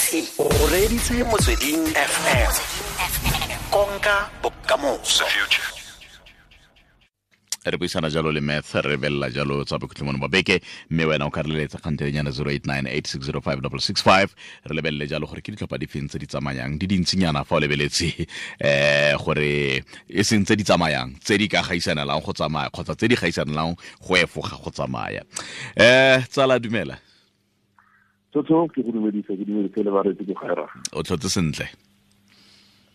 O reditse Motsweding FM, konka bokamoso. Re buisana jalo le Math, re belela jalo tsa bokhutlhomone ba beke, mme wena o ka re leletsa kgantelenyana 0898605665. Re lebelele jalo gore ke ditlhopha di feng tse di tsamayang di dintsinyana fa o lebeletse, gore e seng tse di tsamayang tse di ka gaisanelang go tsamaya kgotsa tse di gaisanelang go efoga go tsamaya. Tsala, dumela. Tsotso, ke go dumedise, ke dumedise le bareetsi ko gaera. O tlhotse sentle?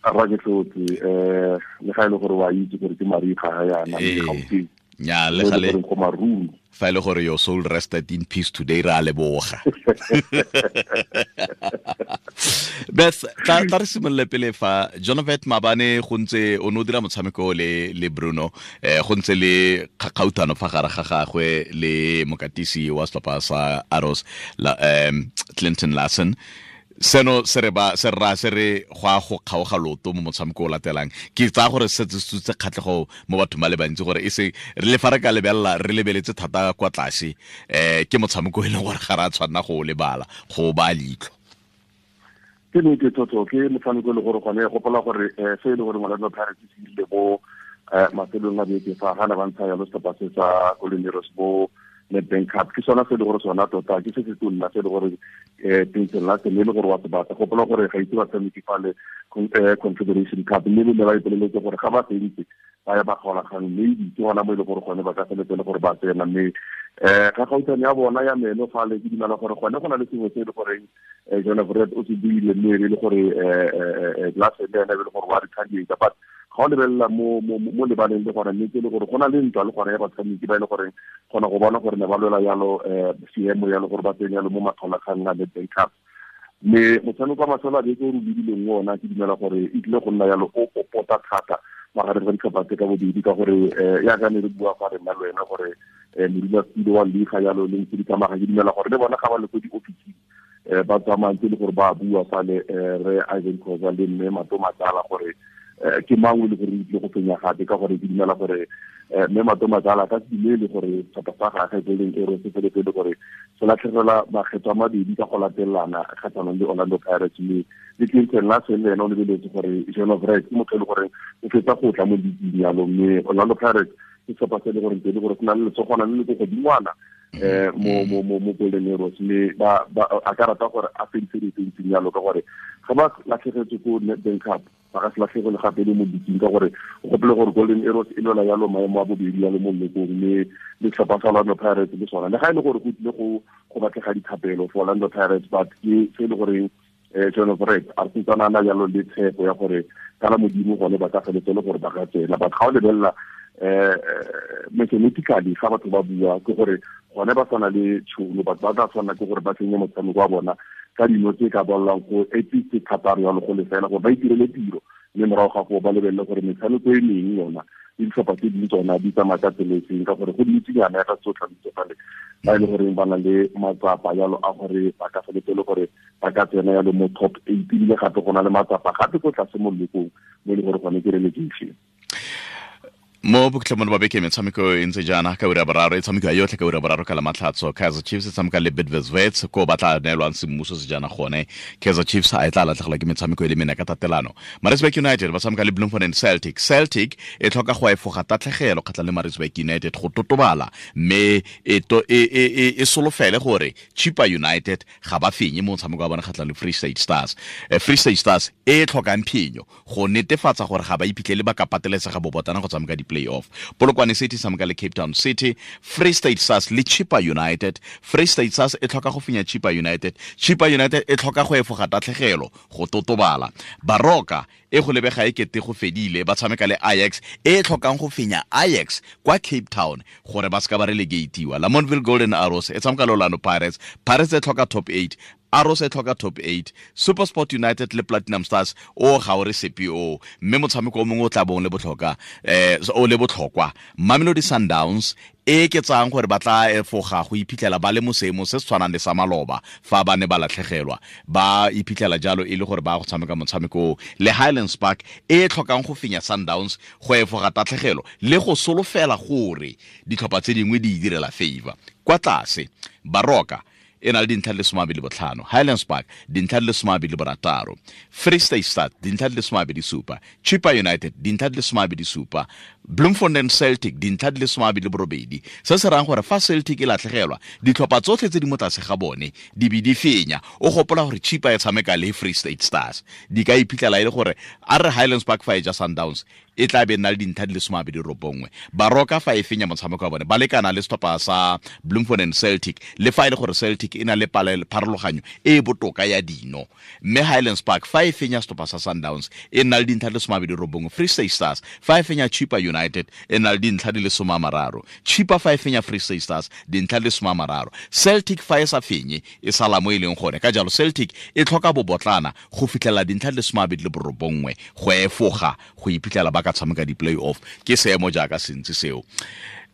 Rra, ke tlhotse, le ga e le gore wa itse gore ke mariga ga yana Gauteng. Nya, le gale go maruru. Fa e le gore your soul rested in peace today, ra leboga. Beth, tla re simolole pele fa Jonovet. Mabane go ntse o ne o dira motshameko le Bruno, go ntse le kgakgauthano fa gare ga gagwe le mokatisi wa setlhopha sa Arrows la, Clinton Larson. Seno se re ba se ra se re go a go kgaoga loto mo motshameko o latelang. Ke tsaya gore se se kgatlhego mo bathong ba le bantsi, gore e se re le fa re ka lebelela, re lebeletse thata kwa tlase, ke motshameko e leng gore ga re a tshwanna go o lebala, go ba leitlho. Ke nnete, Toto, ke motshameko e le gore gone gopola gore se e le gore Orlando Pirates se ile mo mafelong a beke fa ga ne ba ntsha yalo setlhopha se sa Golden Arrows mo Nedbank Cup, ke sona se e le gore sona tota ke se se tonna se e le gore Clinton Larsen e le gore wa se batla. Gopola gore ga itse batshameki fale Confederation Cup, mme le ne ba ipoleletse gore ga ba fentse ba ya ba kgaolakgang, maybe ke gona mo e le gore gone ba ka feletse le gore ba tsena. Mme ga gautshwane ya bona ya meno fale, ke dumela gore gone go na le sengwe se e le goreng Jonah o se buile, mme e le gore Larsen le ene e le gore wa retaliate. But ga o lebelela mo lebaleng, le gone nnete e le gore go na le ntwa le gone ya batshameki ba e le goreng kgona go bona gore ne ba lwela yalo seemo yalo gore ba tsene yalo mo makgaolakgang a Nedbank Cup. Mme motshameko wa mafelo a beke o re lebileng ona, ke dumela gore e tlile go nna yalo o popota thata magareng ga ditlhopha tse ka bobedi, ka gore yaka ne re bua fa re nna le wena gore modulasetulo wa liga yalo le ntse di tsamaya, ke dumela gore le bona ga ba le ko di-officing ba tsamayang tse le gore ba bua fale, re Ivan Khoza le mme Mato Matsala, gore ke mang o le gore o tlile go fenya gape, ka gore ke dumela gore mme Mato Matsala ka se dumele gore setlhopha sa gagwe Golden Arrows se feletse le gore se latlhegelwa makgetho a mabedi ka go latelelana kgatlhanong le Orlando Pirates. Mme le Clinton Larsen le ene o lebeletse gore Jean Vret ke motho e le gore o fetsa go tla mo league yalo, mme Orlando Pirates ke setlhopha se e le gore ntse e le gore se na le letsogwana le le ko godingwana mo Golden Arrows, mme ba a ka rata gore a fedise dilo tse ntseng yalo, ka gore ga ba latlhegetswe ko Nedbank Cup, ba ka se latlhegele gape le mo league, ka gore o gopole gore Golden Arrows e lwela yalo maemo a bobedi yalo mo lekong, mme le setlhopha sa Orlando Pirates le sona, le ga e le gore go tlile go batlega dithapelo for Orlando Pirates, but ke se e le goreng John Fred a sentsana na jalo le tshepo ya gore kana Modimo gone ba ka feletse le gore ba ka tsena. But ga o lebelela mathematically, ga batho ba bua, ke gore gone ba tshwana le tšhono, batho ba tla tshwanela ke gore ba tsenye motshameko wa bona ka dino tse ka bollang go at least thataro yalo go lefela, gore ba itirele tiro, mme morago ga foo ba lebelele gore metshameko e mengwe yona le ditlhopha tse dingwe tsona di tsamaya ka tsela e seng, ka gore go dintsinyana ya ka tsotlha fale ba e le goreng ba na le matsapa yalo a gore ba ka feletse le gore ba ka tsena yalo mo top 8, ebile gape go na le matsapa gape ko tlase mo lekong mo e le gore gone ke relegation. Mo bokhutlhong ba beke, metshameko e ntse jaana ka ura boraro, e tshamekiwa yotlhe ka ura boraro ka Lamatlhatso. Kaizer Chiefs e tshameka le Bidvest Wits, ko ba tla neelwang semmuso sejana gone. Kaizer Chiefs a e tla latlhegelwa ke metshameko e le mene ka tatelano? Maritzburg United ba tshameka le Bloemfontein Celtic. Celtic e tlhoka go efoga tatlhegelo kgatlhang le Maritzburg United go totobala, mme e solofele gore Chippa United ga ba fenye mo motshameko wa bone kgatlhang le Free State Stars. Free State Stars e tlhokang phenyo go netefatsa gore ga ba iphitlhele ba ka pateletsega bobotana go tshameka di-playoff. Polokwane City tshameka le Cape Town City. Free State Stars le Chippa United, Free State Stars e tlhoka go fenya Chippa United, Chippa United e tlhoka go efoga tatlhegelo go totobala. Baroka e go lebega e kete go fedile, ba tshameka le Ajax e tlhokang go fenya Ajax kwa Cape Town gore ba seka ba relegatiwa. Lamontville Golden Arrows e tshameka le Orlando Pirates. Pirates e tlhoka top 8, Arrows e tlhoka top 8. SuperSport United le Platinum Stars, o ga o re sepe o, mme motshameko o mongwe o tla bong le botlhoka o le botlhokwa, Mamelodi Sundowns e ke tsang gore ba tla efoga go iphitlhela ba le mo seemong se se tshwanang le sa maloba fa ba ne ba latlhegelwa, ba iphitlhela jalo e le gore ba go tshameka motshameko le Highlands Park e tlhokang go fenya Sundowns go efoga tatlhegelo le go solofela gore ditlhopha tse dingwe di direla favor. Kwa tlase, Baroka e E na le dintlha di le 25, Highlands Park dintlha di le 26, Free State Stars dintlha di le 27, Chippa United dintlha di le 27, Bloemfontein Celtic dintlha di le 28. Se se rayang gore fa Celtic e latlhegelwa, ditlhopha tsotlhe tse di mo tlase ga bone di be di fenya. O gopola gore Chippa e tshameka le Free State Stars, di ka iphitlhela e le gore a re Highlands Park fa e ja Sundowns e tla be nna le dintlha di le 29. Baroka fa e fenya motshameko wa bone ba lekana le setlhopha sa Bloemfontein Celtic, le fa e le gore Celtic e na le pharologanyo e e botoka ya dino. Mme Highlands Park fa e fenya setlhopha sa Sundowns e nna le dintlha di le 29. Free State Stars fa e fenya Chippa United e nna le dintlha di le 30. Chippa fa e fenya Free State Stars dintlha di le 30. Celtic fa e sa fenye e sala mo e leng gone. Ka jalo Celtic e tlhoka bobotlana go fitlhela dintlha di le 29 go efoga go iphitlhela ba ka tshameka di-play-off. Ke seemo jaaka sentse seo.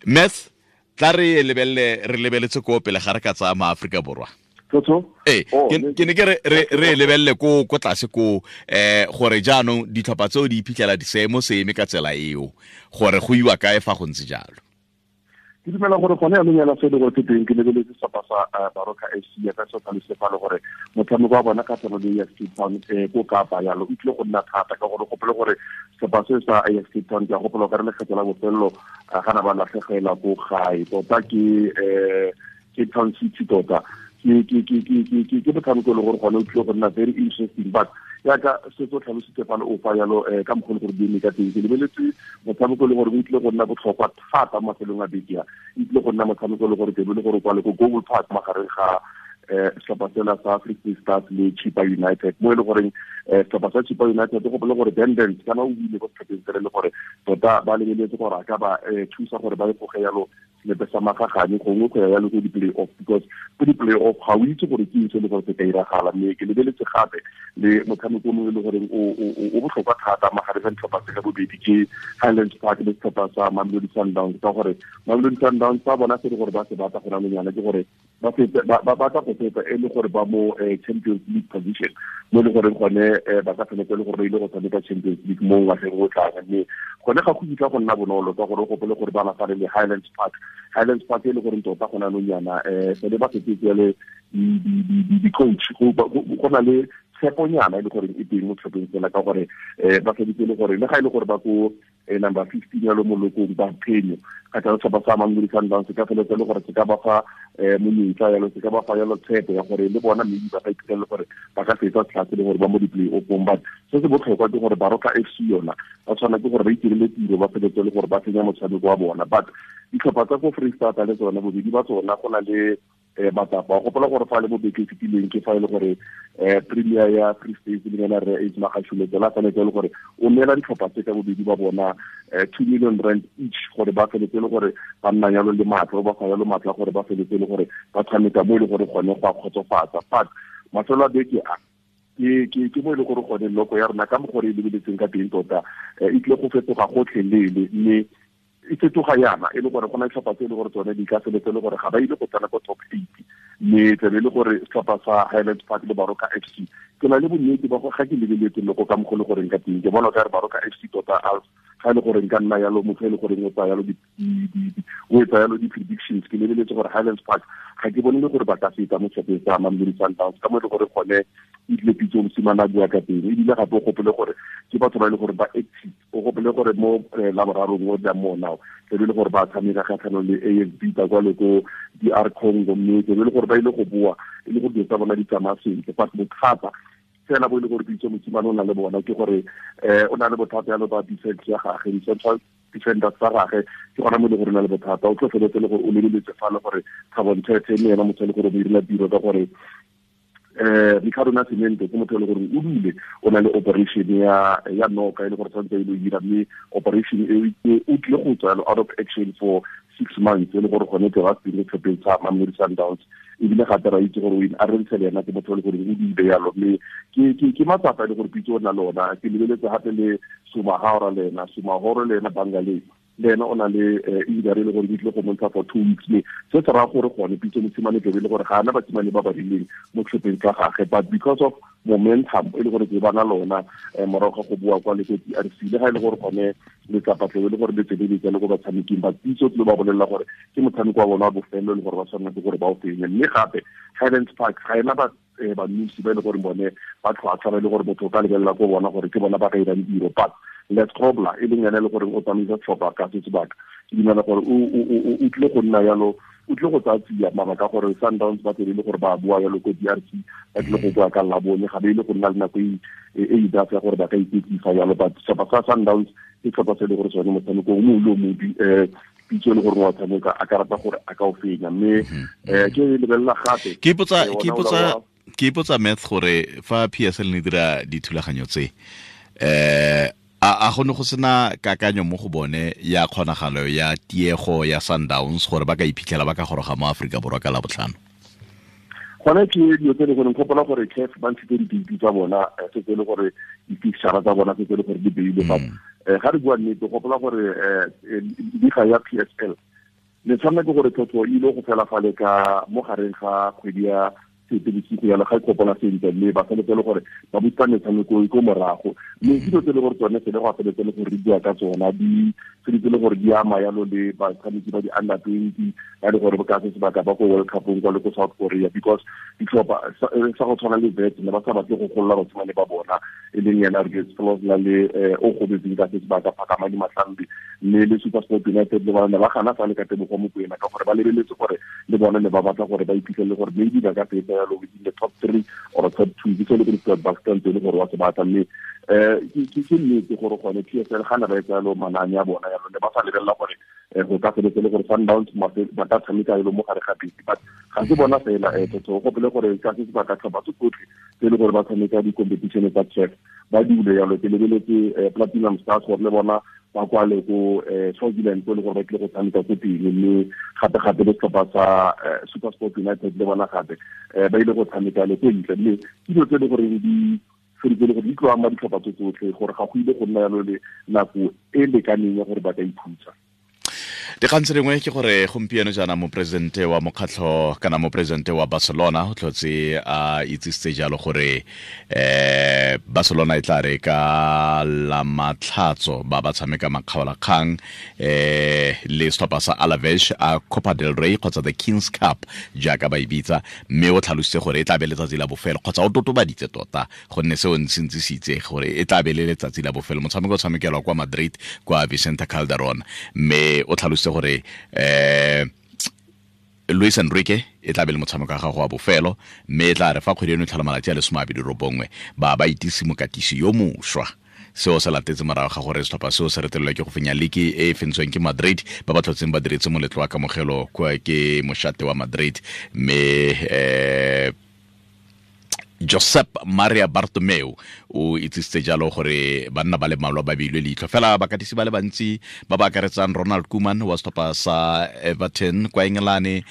Math, tla re lebelele, re lebeletse ko pele ga re ka tsaya maAforika Borwa. Ee, ke ne ke re lebelele ko tlase ko gore jaanong ditlhopha tseo di iphitlhela di seemo se eme ka tsela eo, gore go iwa kae fa go ntse jalo. Ke dumela gore gone jaanong yana se e le gore ke teng, ke lebeletse setlhopha sa Baroka FC ya ka se tlhalositse fa le gore motshameko wa bona kgatlhanong le AS Cape Town ko Kapa yalo o tlile go nna thata, ka gore gopole gore setlhopha se sa AS Cape Town ke a gopola ka re lekgetho la bofelelo ga na ba latlhegela ko gae tota ke Cape Town City tota ke motshameko e le gore gone o tlile go nna very interesting. But yaka se tso tlhalositse fa le o fa yalo ka mokgwa le gore di eme ka teng, ke lebeletse motshameko e le gore o tlile go nna botlhokwa thata mo mafelong a beke a, e tlile go nna motshameko e le gore tebe le gore kwa le ko Google Park magareng ga setlhopha sela sa Free State Stars le Chippa United, mo e le goreng setlhopha sa Chippa United go gopole gore Dendens kana o buile ko setlhopheng sele le gore tota ba lebeletse gore a ka ba thusa gore ba efoge yalo selepe sa magagane gongwe go ya yalo ko di-play-off, because ko di-play-off ga o itse gore ke eng se le gore se ka iragala. Mme ke lebeletse gape le motshameko o mongwe e le goreng o botlhokwa thata magareng ga ditlhopha tse ka bobedi ke Highlands Park le setlhopha sa Mamelodi Sundowns, ka gore Mamelodi Sundowns ba bona se le gore ba se batla go nang yana ke gore ba batla go feta e le gore ba mo Champions League position, mo e le goreng gone ba ka feletse e le gore ba ile go tshameka Champions League mo ngwageng o tlang. Mme gone ga go kitla go nna bonolo ka gore o gopole gore ba lafale le Highlands Park. Highlands Park e le goreng tota go na nonyana sele ba fetetse le di-coach, go na le tsheponyana e le goreng e teng mo tlhopheng fela, ka gore ba feditse le gore le ga e le gore ba ko number 15 ya lo molokong ba phenyo kgotsa setlhopha sa Mamelodi Sundowns se ka feletse le gore se ka ba fa monyetla yalo, se ka ba fa yalo tshepo ya gore le bona maybe ba ka iphitlhela le gore ba ka fetsa tlhase le gore ba mo di-play-offong. But se se botlhokwa ke gore Baroka FC yona ba tshwana ke gore ba itirele tiro, ba feletse le gore ba fenya motshameko wa bona. But ditlhopha tsa ko Free State le tsona bobedi ba tsona go na le matsapa. O gopola gore fa le mo beke e fetileng ke fa e le gore Premier ya Free State le yena re Ace Magashule tsela feletse le gore o neela ditlhopha tse ka bobedi ba bona 2 million rand each gore ba feletse le gore ba nna yalo le matla, ba fa yalo matla gore ba feletse le gore ba tshameka mo e le gore gone go a kgotsofatsa. But mafelo a beke a ke mo e le gore gone loko ya rona ka mo gore e lebeletseng ka teng tota e tlile go fetoga gotlhelele, mme e fetoga yana e le gore go na ditlhopha tse e le gore tsone di ka feletse le gore ga ba ile go tsena ko top 8, mme tlabe e le gore setlhopha sa Highlands Park le Baroka FC ke na le bonnete ba go ga ke lebeletse loko ka mokgwa le goreng ka teng, ke bona ka re Baroka FC tota ga e le gore nka nna yalo motho e le goreng o tsaya yalo o etsa yalo di-predictions, ke lebeletse gore Highlands Park ga ke bone le gore ba ka feta mo setlhopheng sa Mamelodi Sundowns ka mo e le gore gone e tlile Pitso Mosimane a bua ka teng. Ebile gape o gopole gore ke batho ba e le gore ba active, o gopole gore mo laborarong o tlang mo now tlabe e le gore ba tshameka kgatlhanong le AS Vita kwa le ko DR Congo, mme tlabe e le gore ba ile go boa e le gore dilo tsa bona di tsamaya sentle. But bothata fela bo e le gore Pitso Mosimane o na le bona ke gore o na le bothata yalo ba defense ya gagwe, di-central defenders tsa gagwe ke gona mo e le gore o na le bothata. O tlo feletse le gore o lebeletse fa le gore Thabo Nthethe mme ena motho e le gore o mo direla tiro, ka gore Ricardo Nascimento ke motho e le gore o dule o na le operation ya noka e le gore tshwanetse e le dira, mme operation e o tlile go tswa out of action for 6 months e le gore gone ke ba se tlhopheng sa Mamelodi Sundowns. Ebile gape ra itse gore o a rentshe le ena ke motho e le gore o dule yalo, mme ke matsapa e le gore Pitso o na le ona. Ke lebeletse gape le Sumahora le ena, Sumahoro le ena Bangale le ena o na le injury e le gore di tlile go montsha for 2 weeks, mme se se raya gore gone Pitso Mosimane tlabe e le gore ga ana basimane ba ba rileng mo tlhopheng tsa gagwe. But because of Momentum e le gore ke bana lona morago ga go bua kwa le ko DRC, le ga e le gore gone letsapa tlebe le gore le tsweletse le ko batshameking ba Pitso tlile ba bolelela gore ke motshameko wa bona wa bofelo le gore ba tshwanela ke gore ba o fenye. Mme gape Highlands Park ga ena ba banusi ba e le gore bone ba tlhwatlhwa ba e le gore motho o ka lebelela ko bona gore ke bona ba ka irang tiro, but Les Grobler e leng ene e le gore o tsamaisa setlhopha ka se sebaka, ke dumela gore o tlile go nna yalo, o tlile go tsaya tsia mabaka gore Sundowns ba tlile gore ba bua yalo ko DRC, ba tlile go bua ka Labone, ga ba ile go nna le nako e e ya gore ba ka iketlisa yalo. But setlhopha sa Sundowns ke setlhopha se e le gore sone motshameko o mongwe le o mongwe Pitso e le gore wa tshameka a ka rata gore a ka o fenya. Mme ke lebelela gape ke ipotsa Math gore fa PSL ne dira dithulaganyo tse, a go ne go sena kakanyo mo go bone ya kgonagalo ya tiego ya Sundowns gore ba ka iphitlhela ba ka goroga mo Aforika Borwa ka Labotlhano? Gone ke dilo tse e le gore gopola gore CAF ba ntshitse di-date tsa bona, setse e le gore di-fixture tsa bona setse e le gore di beilwe. But ga re bua nnete, gopola gore liga ya PSL le tshwanela ke gore tlhotlho e ile go fela fale ka mo gareng ga kgwedi ya Seetebosigo yalo, ga ikopola sentle, mme ba feletse le gore ba busa metshameko e ko morago. Mme dilo tse e le gore tsone sele go a feletse le gore re bua ka tsona di tshwanetse le gore di ama yalo le batshameki ba di-under 20 ba le gore ka se sebaka ba ko World Cupong kwa le ko South Korea, because ditlhopha sa go tshwana le Wits ne ba sa batle go golola basimane ba bona, e leng yena Rex le o gobetseng ka se sebaka Phakamani Mahlambi, mme le SuperSport United le bona ne ba gana fa le ka Tebogo Mokoena ka gore ba lebeletse gore le bone ne ba batla gore ba iphitlhele gore maybe ba ka fetsa yalo within the top 3 or top 2, ke se le gore Stuart Baxter ntse le gore wa se batla. Mme ke nnete gore gone PSL ga ne ba etsa yalo manane a bona yalo, ne ba sa lebelela gore go ka feletse le gore Sundowns ba ka tshameka yalo mo gare ga beke. But ga se bona fela, tota o gopole gore ka se sebaka tlhopha tse tsotlhe tse e le gore ba tshameka di-competition tsa CAF ba dule yalo. Ke lebeletse Platinum Stars gore le bona ba kwale ko Swaziland ko le gore ba tlile go tshameka ko teng, mme gape-gape le setlhopha sa SuperSport United le bona gape ba ile go tshameka le ko ntle. Mme ke dilo tse e le goreng di feditse le gore di tlo ama ditlhopha tse tsotlhe, gore ga go ile go nna yalo le nako e lekaneng ya gore ba ka ikhutsa. Dikgang tse dingwe ke gore gompieno jaana moporesidente wa mokgatlho kana moporesidente wa Barcelona o tlhotse a itsisitse jalo gore Barcelona e tla re ka la matlhatso ba ba tshameka makgaolakgang le setlhopha sa Alaves a Copa del Rey kgotsa the Kings Cup jaaka ba e bitsa, mme o tlhalositse gore e tla be letsatsi la bofelo, kgotsa o totobaditse tota gonne seo ntse se itse gore e tla be le letsatsi la bofelo. Motshameko o tshamekelwa kwa Madrid kwa Vicente Calderon, mme o tlhalositse gore Luis Enrique e tla be le motshameko wa gago wa bofelo, mme e tla re fa kgwedi eno e tlhola malatsi a le 29 ba ba itise mokatisi yo mošwa. Seo se latetse morago ga gore setlhopha seo se retelelwa ke go fenya liki e e fentsweng ke Madrid, ba ba tlhotseng ba diretse moletlo wa kamogelo kwa ke mošate wa Madrid. Mme Josep Maria Bartomeu o itsisitse jalo gore banna ba le mmalwa ba beilwe leitlho, fela bakatisi ba le bantsi ba ba akaretsang Ronald Koeman wa setlhopha sa Everton kwa Engelane,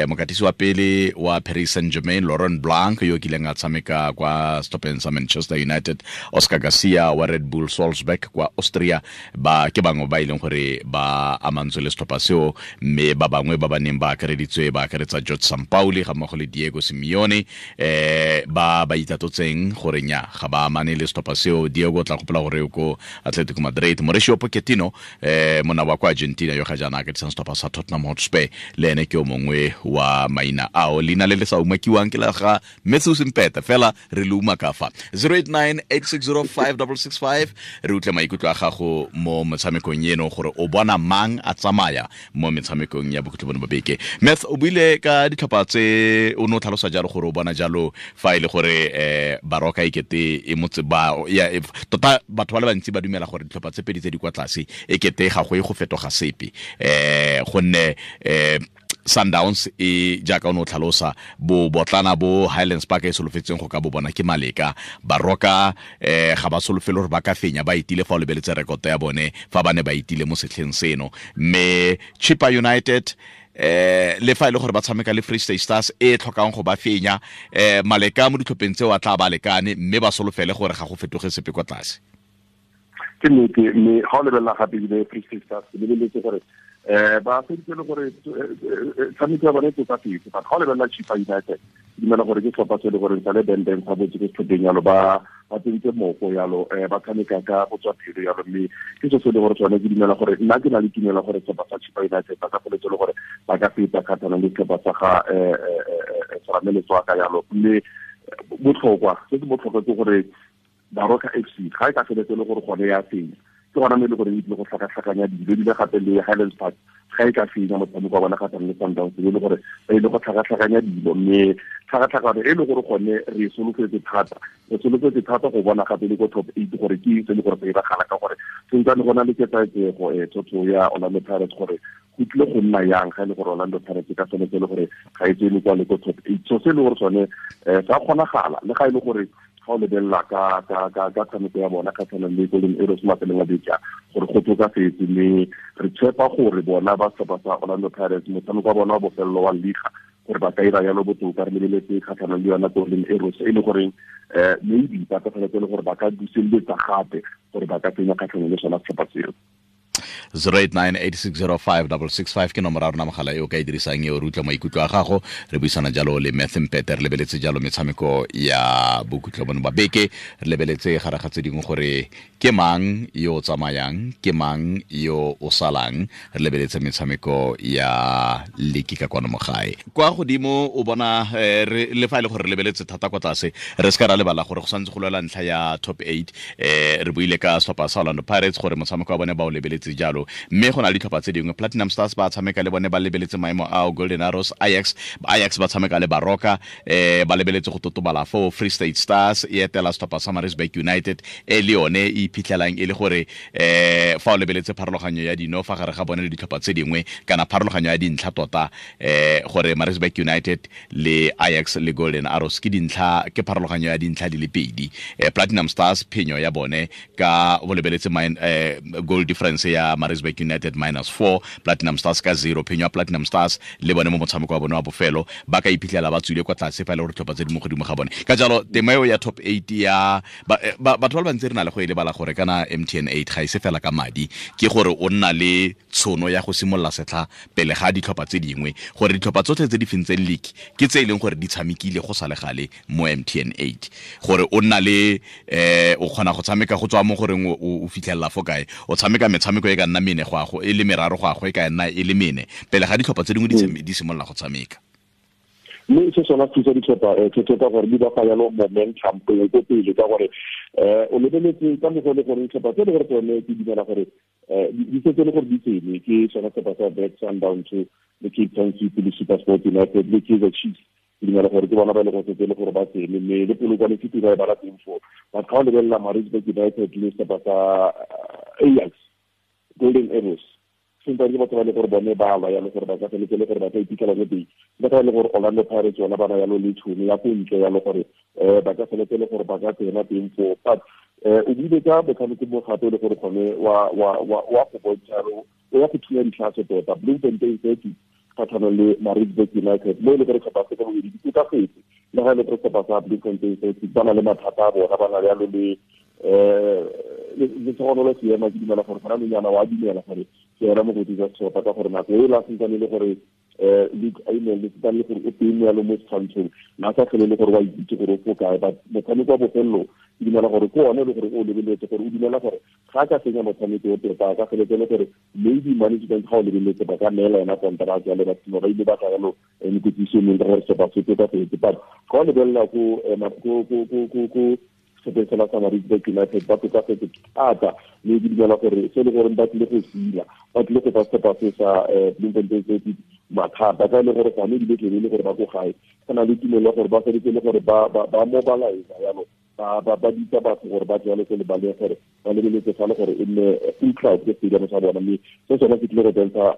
mokatisi wa pele wa Paris Saint-Germain Laurent Blanc yo kileng a tshameka kwa setlhopheng sa Manchester United, Oscar Garcia wa Red Bull Salzburg kwa Austria, ba ke bangwe ba e leng gore ba amantswe le setlhopha seo. Mme ba bangwe ba ba neng ba akareditswe ba akaretsa George Sampaoli ga mmogo le Diego Simeone, ba ba itatotseng gore nya ga ba amane le setlhopha seo. Diego tla gopola gore o ko Atletico Madrid. Mauricio Pochettino monna wa kwa Argentina yo ga jaana a katisang setlhopha sa Tottenham Hotspur, le ene ke o mongwe wa maina ao. Leina le le sa umakiwang ke la ga Matthew Simpeta, fela re le umaka fa. 089 860 5665, re utlwe maikutlo a gago mo motshamekong eno gore o bona mang a tsamaya mo metshamekong ya bokhutlo bone ba beke. Math, o buile ka ditlhopha tse o ne o tlhalosa jalo gore o bona jalo fa e le gore Baroka e kete e motse ba ya tota batho ba le bantsi ba dumela gore ditlhopha tse pedi tse di kwa tlase e kete ga go e go fetoga sepe, gonne Sundowns e jaaka o ne o tlhalosa bo botlana bo Highlands Park e solofetseng go ka bo bona ke maleka. Baroka ga ba solofele gore ba ka fenya, ba itile fa o lebeletse rekoto ya bone fa ba ne ba itile mo setlheng seno. Mme Chippa United le fa e le gore ba tshameka le Free State Stars e tlhokang go ba fenya, maleka mo ditlhopheng tseo a tla ba lekane, mme ba solofele gore ga go fetoge sepe kwa tlase. Ke nnete, mme ga o lebelela gape ebile Free State Stars, ke lebeletse gore Ba feditse le gore tshameko ya bone e tokafetse, but ga o lebelela Chippa United, ke dumela gore ke setlhopha se e le gore sa le bendeng sa botse ke setlhopheng yalo, ba tsentse moko yalo, ba tshameka ka go tswa pelo yalo, mme ke se se le gore tsone ke dumela gore nna ke na le tumelo gore setlhopha sa Chippa United ba ka feletse le gore ba ka feta kgatlhanong le setlhopha sa ga Serame Letswaka yalo. Mme botlhokwa se se botlhokwa ke gore Baroka FC ga e ka feletse le gore gone ya fenya, ke gona mo e le gore e tlile go tlhakatlhakanya dilo, ebile gape le Highlands Park ga e ka fenya motshameko wa bona kgatlhanong le Sundowns, e le gore ba ile go tlhakatlhakanya dilo. Mme tlhakatlhakano e le gore gone re solofetse thata, re solofetse thata go bona gape le ko top 8 gore ke eng se le gore se iragala, ka gore sentsane go na le ketsaetsego thotho ya Orlando Pirates gore go tlile go nna yang ga e le gore Orlando Pirates ka tshwanetse e le gore ga e tsene kwa le ko top 8. So se e le gore sone sa kgonagala, le ga e le gore ga o lebelela ka tshameko ya bona kgatlhanong le Golden Arrows mafelong a beke gore go tokafetse, mme re tshepa gore bona ba setlhopha sa Orlando Pirates motshameko wa bona wa bofelelo wa liga gore ba ka ira yalo botoka. Re lebeletse kgatlhanong le yona Golden Arrows e le goreng maybe ba ka tshwanetse le gore ba ka buseletsa gape gore ba ka tsenya kgatlhanong le sona setlhopha seo. 0898605665 ke nomoro ya rona mogala e o ka e dirisang eo, re utlwa maikutlo a gago. Re buisana jalo le Matthew Mpete, re lebeletse jalo metshameko ya bokhutlo bono ba beke, re lebeletse gare ga tse dingwe gore ke mang yo o tsamayang, ke mang yo o salang, re lebeletse metshameko ya liki ka kwano mo gae. Kwa godimo o bona le fa e le gore re lebeletse thata kwa tlase, re se ka ra lebala gore go santse go lwela ntlha ya top 8. Re buile ka setlhopha sa Orlando Pirates gore motshameko wa bone ba o lebeletse jalo, mme go na le ditlhopha tse dingwe, Platinum Stars ba tshameka le bone ba lebeletse maemo ao, Golden Arrows, Ajax ba tshameka le Baroka, ba lebeletse go totobala foo. Free State Stars e etela setlhopha sa Maritzburg United e le yone e iphitlhelang e le gore fa o lebeletse pharologanyo ya dino fa gare ga bone le ditlhopha tse dingwe, kana pharologanyo ya dintlha tota, gore Maritzburg United le Ajax le Golden Arrows ke dintlha, ke pharologanyo ya dintlha di le pedi. Platinum Stars phenyo ya bone ka o lebeletse goal difference ya Maritzburg United -4, Platinum Stars ka 0, phenyo ya Platinum Stars le bone mo motshameko wa bone wa bofelo ba ka iphitlhela ba tswile kwa tlase fa e le gore ditlhopha tse di mo godimo ga bone. Ka jalo tema eo ya top 8 ya batho ba le bantsi re na le go e lebala gore kana MTN 8 ga e se fela ka madi, ke gore o nna le tshono ya go simolola setlha pele ga ditlhopha tse dingwe, gore ditlhopha tsotlhe tse di fentseng league ke tse e leng gore di tshamekile go sa le gale mo MTN 8, gore o nna le o kgona go tshameka go tswa mo goreng o fitlhelela fo kae, o tshameka metshameko e ka nna mene go a go e le meraro go a go e ka nna e le mene pele ga ditlhopha tse dingwe di simolola go tshameka. Mme se sona thusa ditlhopha ka gore di ba fa yalo momentum pele ko pele, ka gore o lebeletse ka mokgwa le gore ditlhopha tse le gore tsone ke dumela gore di setse le gore di tsene, ke sona setlhopha sa Black Sundowns le Cape Town City le SuperSport United le Kaizer Chiefs, ke dumela gore ke bona ba e le gore setse le gore ba tsene, mme le Polokwane City ba e bala teng foo. But ga o lebelela Maritzburg United le setlhopha sa Ajax, Golden Arrows, sentse ke batho ba le gore bone ba lwa yalo gore ba ka feletse le gore ba ka iphitlhela mo teng, ba ka le gore Orlando Pirates yona ba na yalo le tšhono ya ko ntle yalo gore ba ka feletse le gore ba ka tsena teng foo. But o buile ka motshameko mo gape le gore gone wa go bontsha o ya go thunya ditlhase tota, Bloemfontein Celtic kgatlhanong le Maritzburg United, mo e le gore setlhopha se ka bobedi di tokafetse, le ga e le gore setlhopha sa Bloemfontein Celtic ba na le mathata a bona, ba na le yalo le le tshono seema, ke dumela gore gona nonyana wa dumela gore ke yona mokoti jwa setlhopha, ka gore nako e la sentsane le gore Luke Ayman le sentsane le gore o teng yalo mo setshwantshong, na sa tlhole le gore wa itse gore o fo kae. But motshameko wa bofelelo ke dumela gore ke one le gore o lebeletse gore o dumela gore ga ka senya motshameko o tota, ka feletse le gore maybe management ga o lebeletse ba ka neela yona kontraka ya le batho ba ile ba tla yalo mekwetsiso mengwe ka gore setlhopha se tokafetse. But ga o lebelela ko setlhopheng sela sa Maritzburg United ba tokafetse thata, mme ke dumela gore se e le gore ba tlile go sila, ba tlile go fa setlhopha se sa Bloemfontein Celtic mathata, ka e le gore gone ebile tlebe e le gore ba ko gae, go na le tumelo ya gore ba feletse le gore ba mobilize yalo, ba bitsa batho gore ba tle ko lebaleng gore ba lebeletse fa le gore e nne full crowd ke stadium sa bona, mme se sone se tlile go bontsha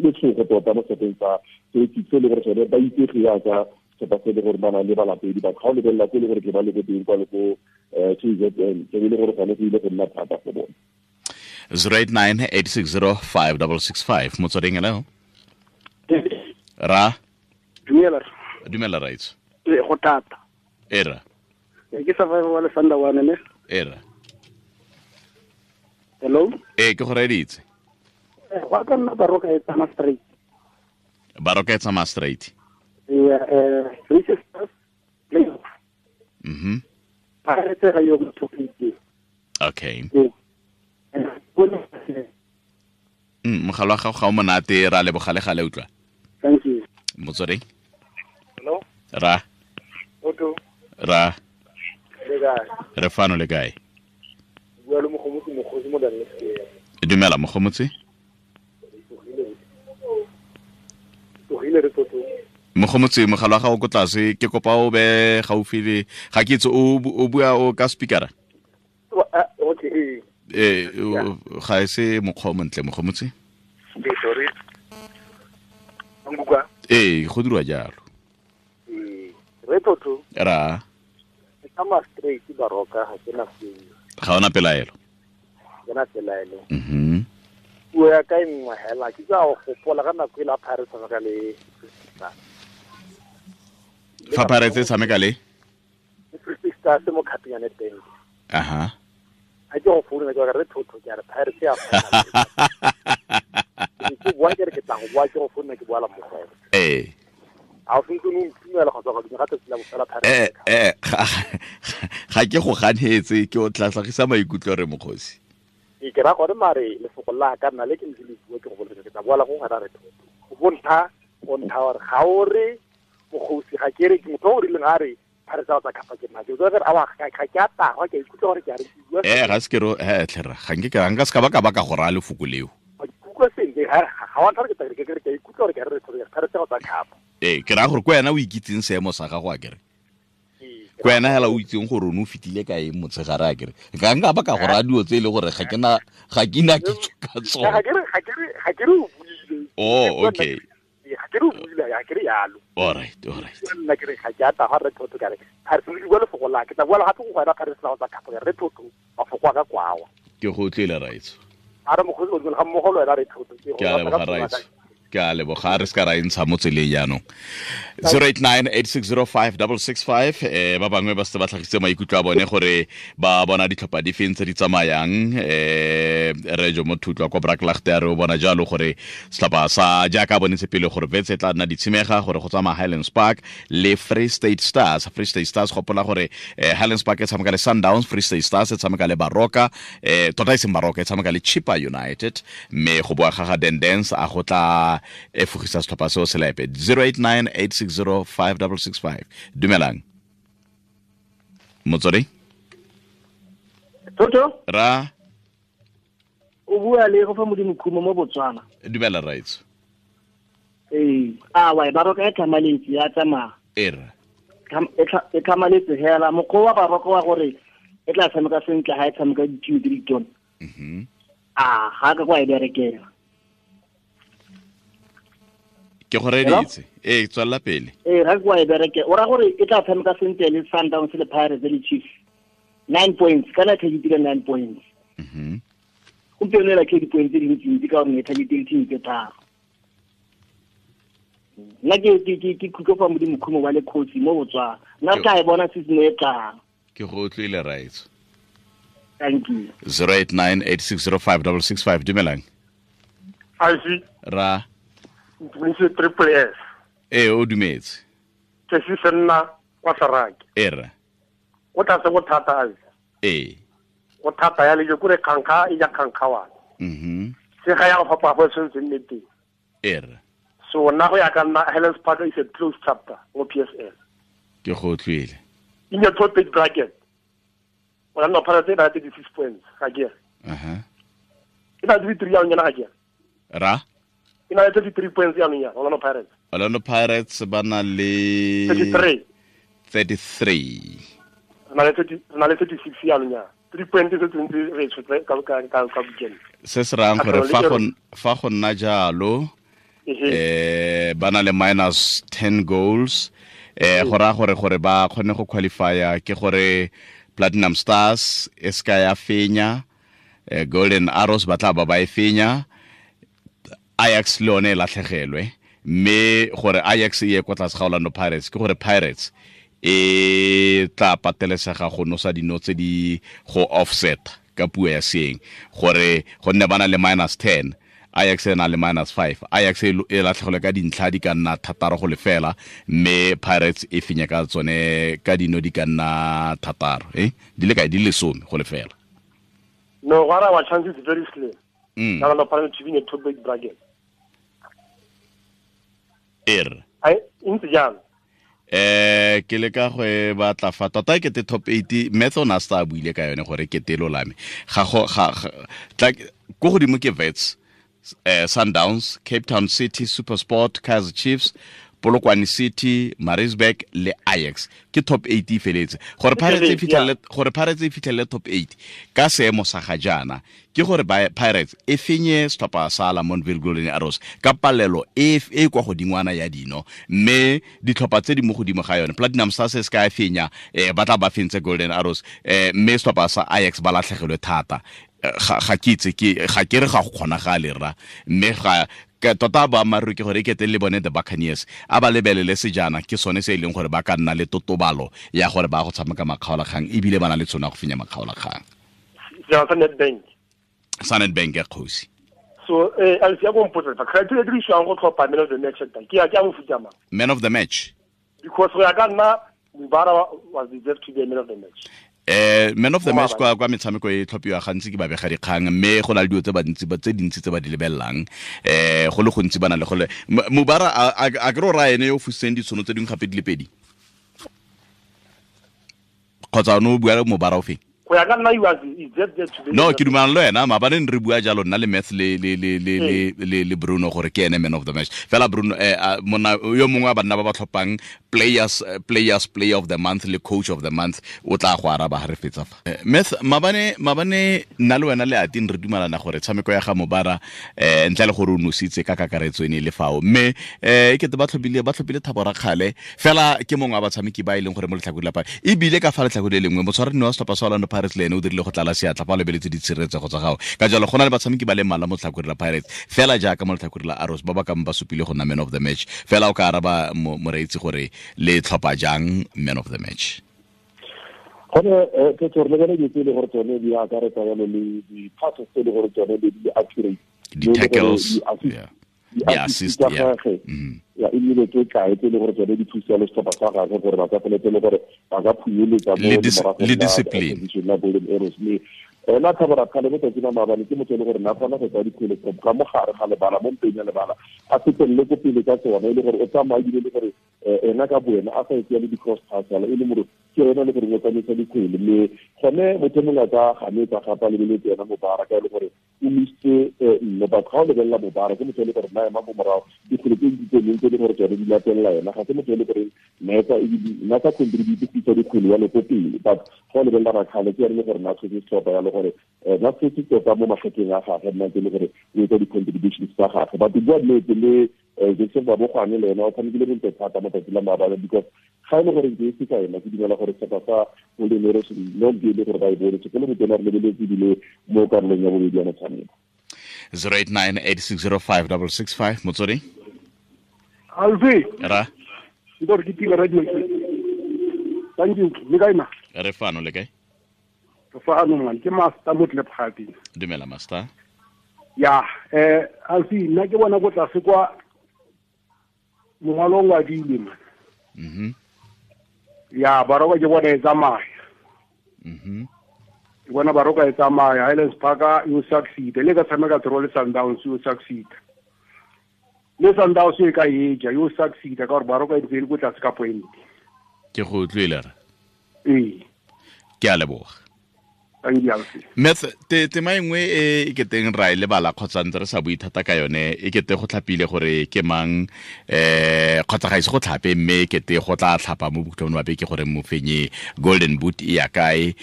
letshogo tota mo setlhopheng sa Celtic, se e le gore sone ba itsege jaaka setlhopha se le gore ba na le balatedi. Batho ga o lebelela ko e le gore ke ba le ko teng kwa le ko KZN, ke le gore gone go ile go nna thata go bone. 0898605665 Motsweding, hello. Ra dumela. Dumela right. Go thata. Era. Ke survivor wa Lefanda one ne. Era. Hello. Ke go reditse. Go ka nna Baroka e tsamaya straight. Baroka e tsamaya straight. Yeah, Free Stars playoff. Mhm. Pirates ga yo go top 8. Okay. Mogala wa gago ga o monate, ra leboga le gale utlwa. Thank you. Motsweding. Hello. Ra. Otto. Ra. Le kae? Re fano, le kae? Bua le Mogomotsi, Mokgosi mo Daniel. Dumela Mogomotsi. Tlogile re Toto. Mogomotsi, mogala wa gago ko tlase, ke kopa o be gaufi le ga ke itse o bua o ka speakera. Okay. Ga e se mokgwa o montle Mogomotsi. Sorry. Nkuka. Go dirwa jalo. Re Toto. Ra. Ke straight Baroka ga ke na sengwe. Ga ona pelaelo. Ke na pelaelo. Mhm. Puo ya ka e nngwe hela ke tsa go gopola ka nako e la Pirates tshameka le fa Pirates e tshameka le Free Stars mo Cup ya Nedbank. Aha. A ke go founa ke re Thotho ke re Pirates ya ke bua ke re ke tla go bua ke go founa ke bua la mmogo. A o sentse o ntumela go tswa go dira tsatsi la bofela Pirates. Ga ke go ganetse, ke o tla tlhagisa maikutlo re Mokgosi. Ke ra gore mare lefoko la ka nna le ke ntse le bua ke go boletse ke tla bua la go gana re Thotho. Go bontsha go ntsha gore ga o re Mokgosi ga ke re ke motho o rileng a re Pirates tsa kapa ke nna ke tswa re a ga ke a tagwa ke ikutlwa gore ke a re bua. Ga se ke ro tlhera ga nke ka nka se ka ba ka ba ka go raya lefoko leo. Kutlwa sentle ga wa ntlha ke ke ke ikutlwa gore ke re Thotho Pirates tsa kapa. Ke raya gore ko wena o ikitseng seemo sa gago a kere. Ko wena hela o itseng gore o ne o fetile ka eng motshegare a kere. Ga nka ba ka go raya dilo tse e le gore ga ke na kitso ka tsone. Ga ke re o buile. Oh, okay. Ga ke re o buile, ga ke re yalo. All right. Nna ke re ga ke a tagwa re Thotho ka re. Ga re se bua lefoko la ke tla bua gape go wena Pirates tsa kapa re Thotho mafoko a ka kwawa. Ke go utlwile raitso. A re Mokgosi o ga mmogo le wena re Thotho. Ke a leboga raitso. Ke a leboga, re se ka ra e ntsha mo tseleng jaanong. 0898605665 ba bangwe ba setse ba tlhagisitse maikutlo a bone gore ba bona ditlhopha di feng tse di tsamayang. Re jo mo Thutlwa kwa Braklaagte a re o bona jalo gore setlhopha sa jaaka bonetse pele gore Wits e tla nna ditshimega gore go tsamaya Highlands Park le Free State Stars. Free State Stars gopola gore Highlands Park e tshameka le Sundowns, Free State Stars e tshameka le Baroka, tota e seng Baroka e tshameka le Chippa United, mme go boa ga ga Dendens a go tla e fogisa setlhopha seo selepe. 0898605665. Dumelang Motswedi. Toto ra o bua le go fa Modimo Khumo mo Botswana. Dumela raitso. A wa Baroka e tlhamaletse ya tsamaya. E tlhamaletse hela mokgwa wa Baroka wa gore e tla tshameka sentle ga e tshameka ditiro tse ditona. Mhm. A ga ka kwa e berekela. Ke go reditse. Tswella pele. Ga ke wa e bereke. O ra gore e tla tshameka sentle le Sundowns le Pirates le Chiefs. 9 points, kana targetile 9 points. Mhm. Gompieno e latlhile di-points tse dintsi ka gore e targetile team tse tharo. Nna ke khutlo fa Modimo Khumo wa le coach mo Botswana. Nna tla e bona season e tlang. Ke go utlwile raitso. Thank you. 0898605665. Dumelang. Aisi. Ra. Ntumedise Triple S. O dumetse. Ke se senna kwa Saraki. Era. O tla se go thata aisi. Go thata ya le ke kure khankha e ja khankha wa. Mhm. Se ga ya go fapa go sentse nne teng. Era. So nna go ya ka nna Highlands Park is a closed chapter mo PSL. Ke go utlwile. In your top eight bracket. Orlando Pirates e na le 36 points ga ke. Aha. E na le 33 ya nyana ga ke. Ra E na le 33 points ya nyana Orlando Pirates. Orlando Pirates ba na le 33. 33. Na le 30, na le 36 ya nyana. 3 points tse tse re tshotse ka weekend. Se se rayang gore fa go nna jalo ba na le minus 10 goals. Go raya gore ba kgone go qualifya ke gore Platinum Stars e ska ya fenya, Golden Arrows ba tla ba e fenya, Ajax le yone e latlhegelwe, mme gore Ajax e ye kwa tlase ga Orlando Pirates ke gore Pirates e tla patelesega go nosa dino tse di go offset ka puo ya seeng gore gonne ba na le minus 10 Ajax e na le -5. Ajax e latlhegelwe ka dintlha di ka nna 6-0, mme Pirates e fenya ka tsone ka dino di ka nna 6, di le kae, di le 10-0. No, what our chances is very slim. Now the Pirates to win a top eight bracket. I ntse jang? Ke le ka go e batla fa tota ke te top 8 method na sta buile ka yone gore ke telo lame ga go ga tla go godimo ke Wits, Sundowns, Cape Town City, SuperSport, Kaizer Chiefs, Polokwane City, Maritzburg le Ajax. Ke top 8 e feletse. Gore Pirates e fitlhelele, gore Pirates e fitlhelele top 8 ka seemo sa ga jaana ke gore Pirates e fenye setlhopha sa Lamontville Golden Arrows ka palelo e e kwa godingwana ya dino, mme ditlhopha tse di mo godimo ga yone Platinum Stars se ka e fenya, ba tla ba fentse Golden Arrows, mme setlhopha sa Ajax ba latlhegelwe thata. Ga ke itse, ke ga ke re ga go kgonagale rra, mme ga tota boammaaruri ke gore e kete le bone the Buccaneers a ba lebelele sejana ke sone se e leng gore ba ka nna le totobalo ya gore ba go tshameka makgaolakgang, ebile ba na le tshono ya go fenya makgaolakgang. Sa Nedbank ya kgosi. So Alfie, go mpotsa fa criteria e dirisiwang go tlhopha man of the match ke ya ke a mofuta mang? Man of the match. Because go ya ka nna Mubara was deserved to be a man of the match. Man of the match kwa metshameko e tlhophiwa gantsi ke babega dikgang, mme go na le dilo tse bantsi ba tse dintsi tse ba di lebelelang, go le gontsi ba na le gole Mubara a ke re o raya ene yo o fusitseng ditshono tse dingwe gape di le pedi, kgotsa o ne o bua le Mubara o feng? Go ya ka nna he was deserved to be. No, ke dumelana le wena, maabane ne re bua jalo nna le Math le le le le le le Bruno gore ke ene man of the match. Fela Bruno monna yo mongwe wa banna ba ba tlhophang players player of the month le coach of the month o tla go araba ha re fetsa fa. Math, maabane nna le wena le Atin re dumelana gore tshameko ya ga Mubara ntle le gore o nositse ka kakaretso ene le fao, mme e kete ba tlhophile Thabo Rakgale fela ke mongwe wa batshameki ba e leng gore mo letlhakore la Pirates, ebile ka fa letlhakore le lengwe motshwaranne wa setlhopha sa Orlando Pirates le ene o dirile go tlala seatla fa o lebeletse ditshireletsego tsa gago. Ka jalo go na le batshameki ba le mmalwa mo letlhakoreng la Pirates fela jaaka mo letlhakoreng la Arrows ba ba kang ba supile go nna man of the match. Fela o ka araba moreetsi gore le tlhopha jang man of the match. Gone ke tsore le bone dilo tse e le gore tsone di akaretsa jalo le di-passes tse e le gore tsone di accurate, di-tackles, di-assist, ya e nnile tse kae tse e le gore tsone di thusa le setlhopha sa gagwe gore ba ka feletse le gore ba ka phunyeletsa mo le discipline la Golden Arrows. Mme ena Thabo Rakgale mo tsatsing la maabane ke motho e le gore na kgona go tsaya dikgwele ka mo gare ga lebala, mo mpeng ya lebala, a fetelele ko pele ka tsona, e le gore o tsamaya ebile le gore ena ka boena a sa etsea le di-cross pass yalo, e le more ke ena le gore o tsamaisa dikgwele. Mme gone motho mongwe a ka ganetsa gape a lebeletse ena Mubara ka e le gore o misitse nne, but ga o lebelela Mubara ke motho e le gore na ema ko morago dikgwele tse di tse dingwe tse e le gore tsone di latelela ena, ga se motho e le gore nna sa contribute go isa dikgwele yalo ko pele. But ga o lebelela Rakgale ke ene le gore na tshwetse setlhopha yalo gore na tshwetse tota mo magetleng a gagwe, nna ntse e le gore o etsa di-contributions tsa gagwe. But bua nnete le Jackson Babogwane le ena o tshamekile bontle thata mo tsatsi la maabane, because ga e le gore ke se ka ena ke dumela gore setlhopha sa Golden Arrows no ke le gore ba e bone sekolo motho re lebeletse ebile mo karolong ya bobedi ya motshameko. 0898605665 Motswedi. Alfi. Ra. Ntor ke tile radio ke. Thank you. Le kae ma? Re fano le kae? Re fano man, ke Master Motlephati. Dumela Master. Ya, Alfi nna ke bona go tlase kwa mongwalo wa dile man. Ya Baroka ke bona e tsamaya. Ke bona Baroka e tsamaya, Highlands Park you succeed. Le ka tshameka draw le Sundowns you succeed. Le Sundowns e ka eja you succeed ka gore Baroka e ntse e le ko tlase ka point. Ke go utlwile re. Ee. Ke a leboga. Meth, tema e nngwe e keteng ra e lebala kgotsa ntse re sa bue thata ka yone, e kete go tlhapile gore ke mang, kgotsa ga ise go tlhape, mme e kete go tla tlhapa mo bokhutlong ba beke gore mofenyi Golden Boot e ya kae.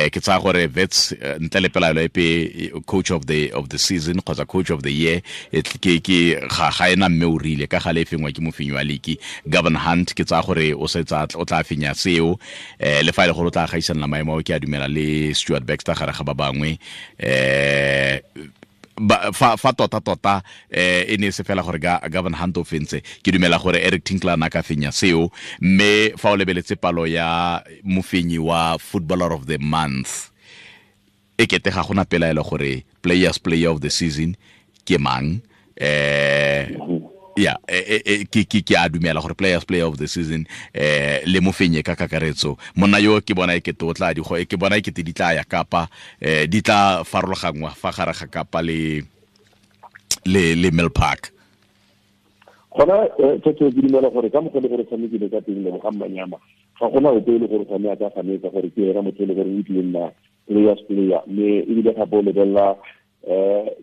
Ke tsaya gore Wits ntle le pelaelo epe coach of the season kgotsa coach of the year ke ga ena mme o rile ka gale e fengwa ke mofenyi wa league Gavin Hunt. Ke tsaya gore o setsa o tla fenya seo, le fa e le gore o tla gaisanela maemo ao, ke a dumela le Stuart Baxter gare ga ba bangwe. Fa tota e ne se fela gore Gavin Hunt o fentse, ke dumela gore Eric Tinkler na ka fenya seo. Mme fa o lebeletse palo ya mofenyi wa footballer of the month, e kete ga gona pelaelo gore players player of the season ke mang. Ya ke a dumela gore players player of the season le mofenye ka kakaretso monna yo ke bona e ke totla di go ke bona e ke di tla ya Kapa, di tla farologangwa fa gare ga Kapa le Mill Park. Gona tse di dumela gore ka mogolo gore tshamekile ka teng le ga Manyama ga gona ope le gore gone a ka ganetsa gore ke ena motho le gore o tlile nna players player, mme ebile gape o lebelela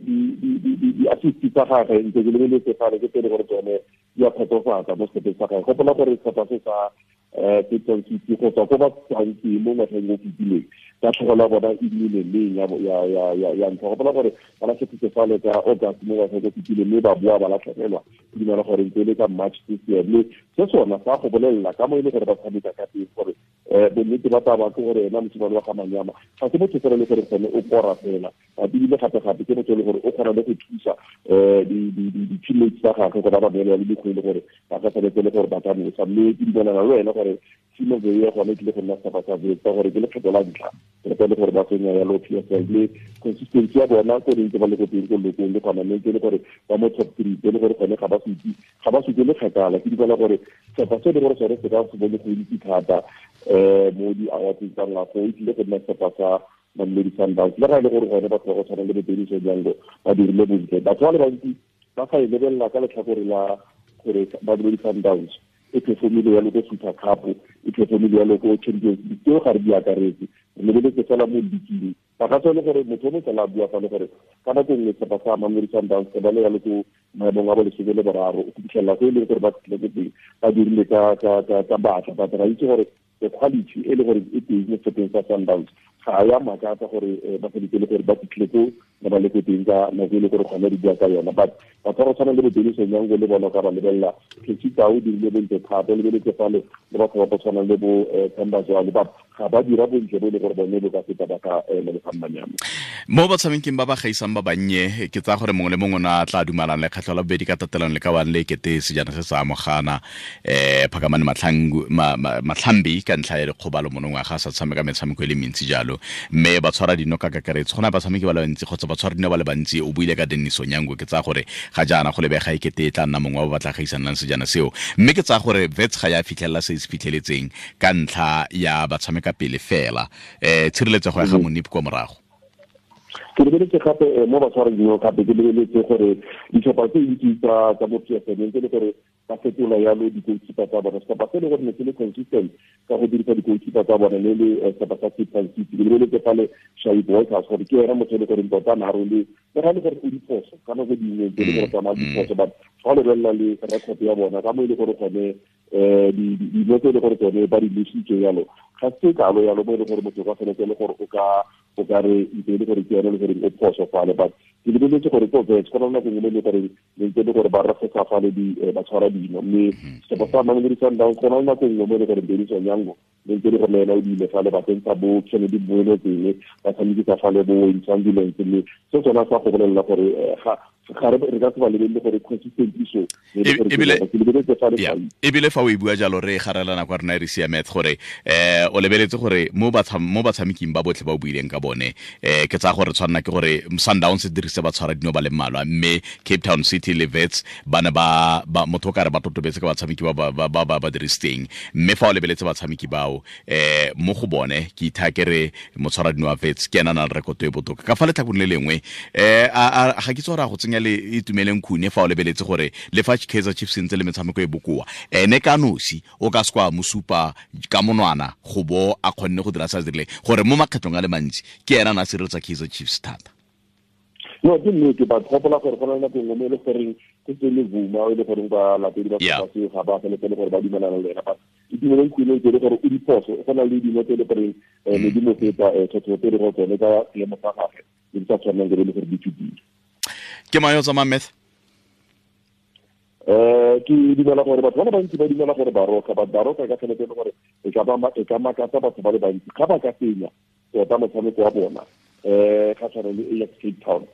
di assist tsa gagwe ntse ke lebeletse fale ke tsele gore tsone di a kgotsofatsa mo setlhopheng sa gagwe. Gopola gore setlhopha se sa Cape Town City go tswa ko ba tswang teng mo ngwageng o fetileng tatlhegelo ya bona e nnile leng ya ntlha. Gopola gore ba latlhegetse fale ka August mo ngwageng o fetileng, mme ba boa ba latlhegelwa ke dumela gore ntse e le ka March this year. Mme se sona sa go bolelela ka mo e le gore ba tshameka ka teng gore bonnete ba taba ke gore ena mosimane wa ga Manyama ga se motho fela le gore gone o kora fela, ebile gape-gape ke motho e le gore o kgona le go thusa di-teammates tsa gagwe gore ba ba neele le mekgwa e le gore ba ka tshwanetse le gore ba ka nosa. Mme ke dumelana le wena gore team of the year gone e tlile go nna setlhopha sa Wits ka gore ke lekgetho la ntlha re le gore ba tsenya yalo PSL, mme consistency ya bona ko ntse ba le ko teng ko lokong le gona mme le gore ba mo top 3 le gore gone ga ba supe le kgakala. Ke dumela gore setlhopha se le gore sone se ka se bone go itse thata mo di-awards tsa ngwaga e tlile go nna setlhopha sa Mamelodi Sundowns. Le ga e le gore gone batho ba go tshwana le bo Dennis Onyango ba dirile bontle, batho ba le bantsi ba sa e lebelela ka letlhakore la gore Mamelodi Sundowns e performile yalo ko Super Cup, e performile yalo ko Champions League, tseo ga re di akaretse, re lebeletse fela mo league. Ba ka tswa le gore motho o mongwe fela a bua fa le gore ka nako nngwe setlhopha sa Mamelodi Sundowns ba le yalo ko maemong a bo 13 go fitlhelela ko e leng gore ba fitlhile ko teng ba dirile ka batla, but ra itse gore the quality e le gore e teng mo setlhopheng sa Sundowns ga ya makatsa gore ba feditse le gore ba fitlhile ko ba ba le ko teng ka nako e le gore gone re bua ka yona. But batho ba go tshwana le bo Dennis Onyango le bona ka ba lebelela Ketsita o dirile bontle thata, o lebeletse fale le batho ba go tshwana le bo Themba Zwane, ba ga ba dira bontle bo e le gore bone bo ka feta ba ka Lebogang Manyama. Mo batshameking ba ba gaisang ba bannye ke tsaya gore mongwe le mongwe o ne a tla dumalang lekgetlho la bobedi ka tatelano le ka one le kete sejana se sa amogana Phakamani Matlhambi ka ntlha ya dikgobalo monongwaga a sa tshameka metshameko e le mentsi jalo, mme ba tshwara dino ka kakaretso go na batshameki ba le bantsi kgotsa ba tshwara dino ba le bantsi. O buile ka Dennis Onyango, ke tsaya gore ga jaana go lebega e kete e tla nna mongwe wa ba ba tla gaisanang sejana seo, mme ke tsaya gore Wits ga ya fitlhelela se se fitlheletseng ka ntlha ya batshameka pele fela tshireletsego ya ga Monip kwa morago. Ke lebeletse gape mo batshwara dino gape ke lebeletse gore ditlhopha tse dintsi tsa mo PSL ntse le gore ba fetola yalo di-goalkeeper tsa bona. Setlhopha se le gore ne se le consistent ka go dirisa di-goalkeeper tsa bona le le setlhopha sa Cape Town City. Ke lebeletse fale Shaib Walters gore ke ena motho e le goreng tota na role le ga e le gore o diphoso ka nako dingwe tse le gore tsamaya diphoso, but ga o lebelela le record ya bona ka mo e le gore gone dilo tse e le gore tsone ba di lositse yalo ga se kalo yalo mo e le gore motho ka tshwanetse le gore o ka re ntse e le gore ke yone le gore o phoso fale. But ke lebeletse gore ko Wits go na le nako nngwe le gore le ntse le gore ba refesa fale ba tshwara dino, mme setlhopha sa Mamelodi Sundowns go na le nako nngwe mo e le gore Dennis Onyango le ntse le gore le ena o diile fale ba tsentsha bo Kennedy Mboele teng ba tshamekisa fale bo Wayne Sandilands, mme se sona sa go bolelela gore ga re ka se ba lebelele gore consistency so ebile fa o e bua jalo re garelana kwa rena re siametse gore o lebeletse gore mo batshameking ba botlhe ba o buileng ka bone ke tsaya gore tshwanna ke gore Sundowns dirise ba tshwara dino ba le mmalwa, mme Cape Town City le Wits ba ne ba motho o ka re ba totobetse ka batshameki ba ba dirisitseng, mme fa o lebeletse batshameki bao mo go bone ke itha ke re motshwara dino wa Wits ke ena na le rekoto e botoka. Ka fa letlhakong le lengwe ga ke tsore go tsenya le Itumeleng Khune fa o lebeletse gore le fa Kaizer Chiefs ntse le metshameko e bokoa ene ka nosi o ka se kwa mosupa ka monwana go bo a kgonne go dira sa dirile gore mo makgetlong a le mantsi ke ena na sireletsa Kaizer Chiefs thata. No, ke nnete, but gopola gore go na le nako nngwe mo e le goreng ke tse le Vuma e le goreng ba latedi ba setlhopha seo ga ba feletse le gore ba dumelana le ena, but Itumeleng Khune tse le gore o diphoso go na le dino tse e le goreng ne di mo feta thotho tse e le gore tsone ka seemo sa gagwe ne di sa tshwanelang ke le gore di fetile. Ke mang yo tsamayang Meth? Ke dumela gore batho ba le bantsi ba dumela gore Baroka, but Baroka ka tshwanetse le gore e ka makatsa batho ba le bantsi ga ba ka fenya tota motshameko wa bona ga tshwana le Ajax Cape Town.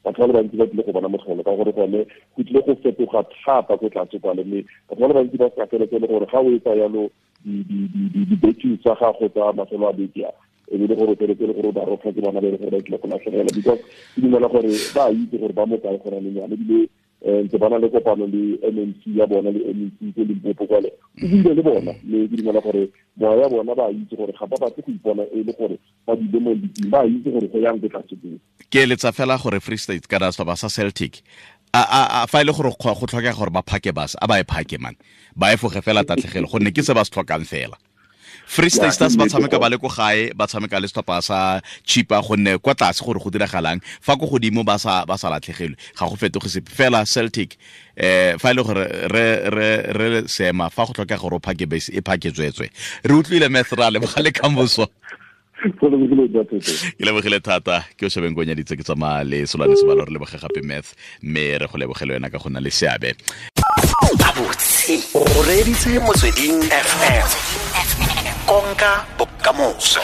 Batho ba le bantsi ba tlile go bona motlholo ka gore gone go tlile go fetoga thata ko tlase kwale, mme batho ba le bantsi ba sa feletse le gore ga o etsa yalo di-betting tsa gago tsa mafelo a beke a E be le gore o feletse le gore o Baroka ke bona ba e le gore ba tlile go latlhegela, because ke dumela gore ba itse gore ba mo kae gona le nyane, ebile ntse ba na le kopano le MMC ya bona le MEC ko Limpopo kwale, o buile le bona, mme ke dumela gore moya ya bona ba itse gore ga ba batle go ipona e le gore ba dule mo league, ba itse gore go yang ko tlase teng. Ke eletsa fela gore Free State kana setlhopha sa Celtic, a fa ile gore go tlhokega gore ba phake bus, a ba e phake man, ba e foge fela tatlhegelo, gonne ke se ba se tlhokang fela. Free State Stars ba tshameka ba le ko gae, ba tshameka le setlhopha sa Chipa, gonne kwa tlase gore go diragalang fa ko godimo ba sa latlhegelwe, ga go fetoge sepe fela. Celtic fa ile gore re seema fa go tlhokega gore o phake base, e phake tswetswe. Re utlwile Methra le bogale kamoso. Ke lebogile thata, ke o shebeng ko nyaditse ke tsamaya le Solane Sebalo, re leboge gape Math, mme re go lebogele wena ka go nna le seabe. Gabotse o reeditse Motsweding FM, konka bokamoso.